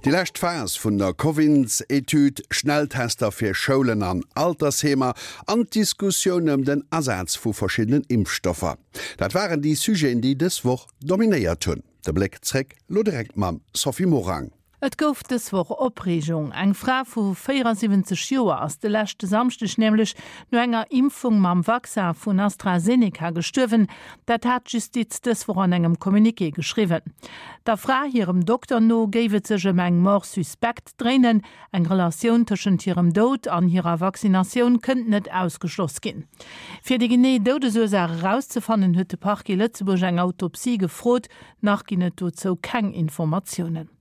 Déi lescht Phas vun der Covins-Etüd, Schnelltester fir Schoulen an Altersheemer an d'Diskussioun ëm den Asaz vu verschiddenen Impfstoffer, dat waren déi Sujeten, déi dës Woch dominéiert hunn. De Bléck zréck lo direkt mam Sophie Morang. Et gouf dës Woch Opreegung. Eng Fra vu 74 Joer ass de leschte Samschdeg nämlech no enger Impfung mam Vaccin vun AstraZeneca gestuerwen. Dat hat d'Justiz dës Woch an engem Communiqué geschriwwen. Der Fra hirem Dokter no géif et sech ëm eng Mort suspecte dréinen. Eng Relatioun tëschent hirem Doud an hirer Vaccinatioun kënnt net ausgeschloss ginn. Fir déi genee Doudesursaach erauszefannen, huet de Parquet Lëtzebuerg eng Autopsie gefrot. Nach ginn et dozou keng Informatiounen.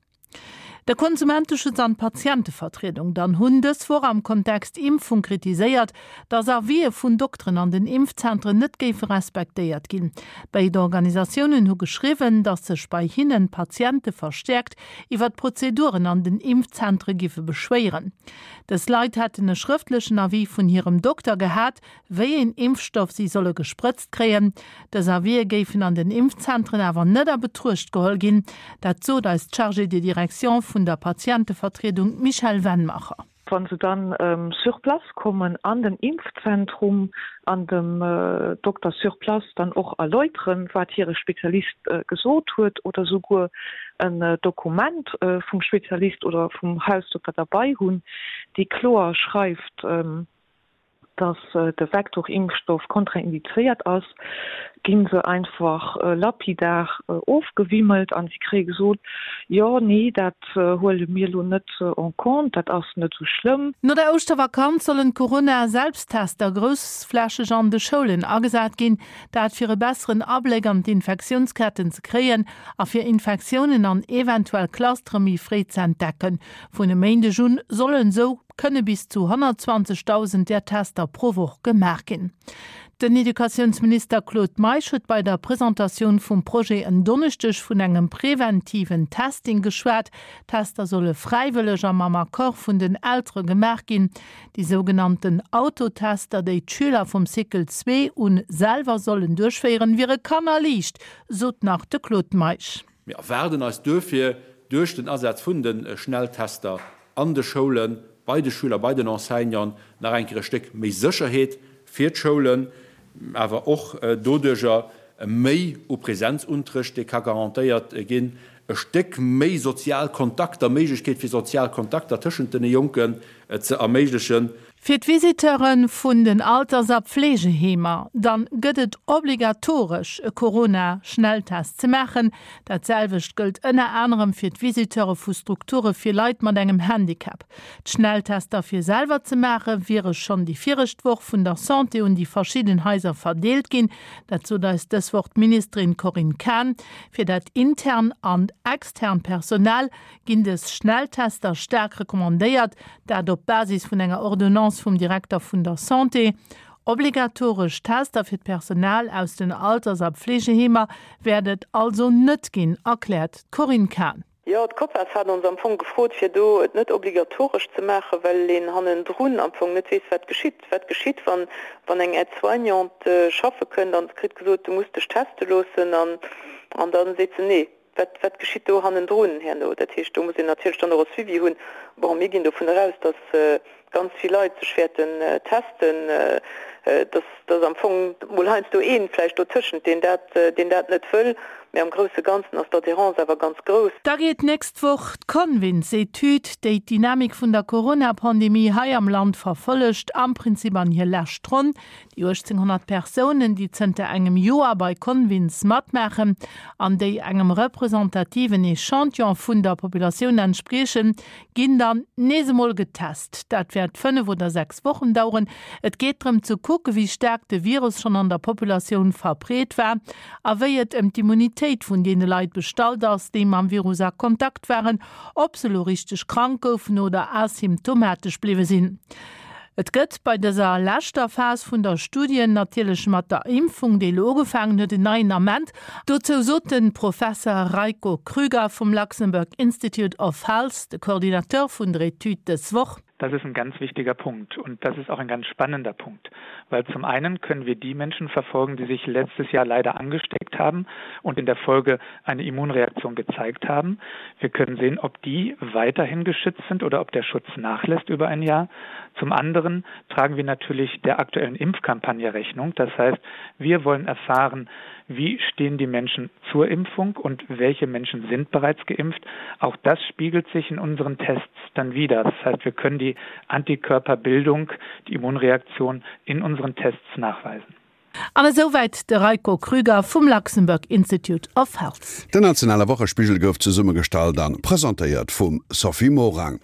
De Konsumenteschutz an d'Patientevertriedung dann hunn dës Woch am Kontext Impfung kritiséiert, datt Avisë vun Dokteren an den Impfzentren net géife respektéiert ginn. Béid Organisatiounen hu geschriwwen, datt sech bei hinnen d'Patiente verstäerkt iwwer d'Prozeduren an den Impfzentre giffe beschwéieren. Dës Leit hätten e schrëftlechen Avis vun hirem Dokter gehat, wéi een Impfstoff si solle gesprëtzt kréien. Dës Avisë géifen an den Impfzentren awer net a Betruecht geholl ginn. Dat sot eis d'Chargée de direction vun der Patientevertriedung, d'Michèle Wennmacher. Wa se dann sur place kommen an den Impfzentrum an dem Dokter sur place dann och erläuteren, wat hire Spezialist gesot huet oder souguer en Dokument vum Spezialist oder vum Hausdokter derbei hunn, dee kloer schreift, dass de Vektorimpfstoff kontraindizéiert ass, gi se einfach lapidar ofgewimmelt a si kréie gesot, jo, nee, dat huele mir elo net en compte, dat ass net esou schlëmm. No der Ouschtervakanz sollen d'Corona-Selbsttester groussflächeg an de Schoulen agesat ginn. Dat fir e besseren Abléck an d'Infektiounsketten ze kréien a fir Infektiounen an eventuell Clustere méi fréi ze entdecken. Vun e Méindeg un sollen esou kënne bis zu 120.000 där Tester pro Woch gemaach ginn. Den Educatiounsminister Claude Meisch huet bei der Presentatioun vum Projet en Donneschdeg vun engem preventiven Testing geschwat. D'Tester solle fräiwëlleg a mam Accord vun den Eltere gemaach ginn. Déi sougenannten Autotester, déi d'Schüler vum Cycle 2 un selwer sollen duerchféieren, wiere kannerliicht, sot nach de Claude Meisch. Mir erwaarden eis duerfir duerch den Asaz vun de Schnelltester an de Schoulen, bei de Schüler, bei den Enseignanten nach eng Kéier e Stéck méi Sécherheet fir d'Schoulen, awer och doduerjer méi u Präsenzunterrecht, dee ka garantéiert ginn, e Stéck méi sozial Kontakter, Méiglechkeet fir sozial Kontakter tëschent den Jonken ze erméiglechen. Fir d'Visiteure vun den Alters a Pflegeheemer dann gëtt et obligatoresch e Corona-Schnelltest ze maachen. Dat selwecht gëllt ënner anerem fir d'Visiteure vu Strukture fir Leit mat engem Handicap. D'Schnelltester fir selwer ze maache wiere schonn déi viregt Woch vun der Santé un déi verschidden Haiser verdeelt ginn. Dat sot eis dës Woch d'Ministerin Corinne Cahen. Fir dat intern an extern Personal ginn dës Schnelltester staark recommandéiert, dat op Basis vun enger Ordonnance vum Direkter vun der Santé. Obligatoresch Tester fir d'Personal aus den Alters a Pflegeheemer wäert et also net ginn, erkläert d'Corinne Cahen. Jo, d'COPAS hat ons am Fong gefrot, fir do et net obligatoresch ze maachen, well een hannendrun am Fong net weess, wat geschitt. Wat geschitt, wann, wann eng Aide-soignante schaffe kënnt an se kritt gesot, du muss dech teste loossen an, an da seet se nee. Wat, wat geschitt do hannendrun herno? Dat heescht, do muss een natierlech dann och e Suivi hunn. Bon, mir ginn dovun eraus, dass ganz vill Leit sech wäerten testen, dass, dass am Fong mol heiansdo ee vläicht dotëschent, deen dat, deen dat net wëll, mä am grousse Ganzen ass d'Adhérence awer ganz grouss. Da geet d'nächst Woch d'Convins-Etüd, déi d'Dynamik vun der Corona-Pandemie hei am Land verfollegt, am Prinzip an hir lescht Ronn. Déi 1.800 Persounen, déi zënter engem Joer bei Convins matmaachen an déi engem representativen Echantillon vun der Populatioun entspriechen, ginn dann nees emol getest. Dat wäert 5 oder 6 Wochen daueren. Et geet drëm ze kucken, wéi staark de Virus schonn an der Populatioun verbreet war a wéi et ëm d'Immunitéit vun deene Leit bestallt ass, déi mam Virus a Kontakt waren, ob se elo richteg krank goufen oder asymptomatesch bliwwe sinn. Et gëtt bei dëser leschter Phas vun der Studien natierlech mat der Impfung, déi elo ugefaangen huet, en neien Ament. Dozou sot de Professer Rajko Krüger vum Luxembourg Institute of Health, de Coordinateur vun der Etüd, dës Woch. Das ist ein ganz wichtiger Punkt und das ist auch ein ganz spannender Punkt, weil zum einen können wir die Menschen verfolgen, die sich letztes Jahr leider angesteckt haben und in der Folge eine Immunreaktion gezeigt haben. Wir können sehen, ob die weiterhin geschützt sind oder ob der Schutz nachlässt über ein Jahr. Zum anderen tragen wir natürlich der aktuellen Impfkampagne Rechnung. Das heißt, wir wollen erfahren, wie stehen die Menschen zur Impfung und welche Menschen sind bereits geimpft. Auch das spiegelt sich in unseren Tests dann wieder. Das heißt, wir können die Antikörperbildung, die Immunreaktion in unseren Tests nachweisen. An esouwäit de Raiko Krüger vum Luxembourg Institute of Health. Den nationale Wochespigel gouf zesummegestallt an presentéiert vum Sophie Morang.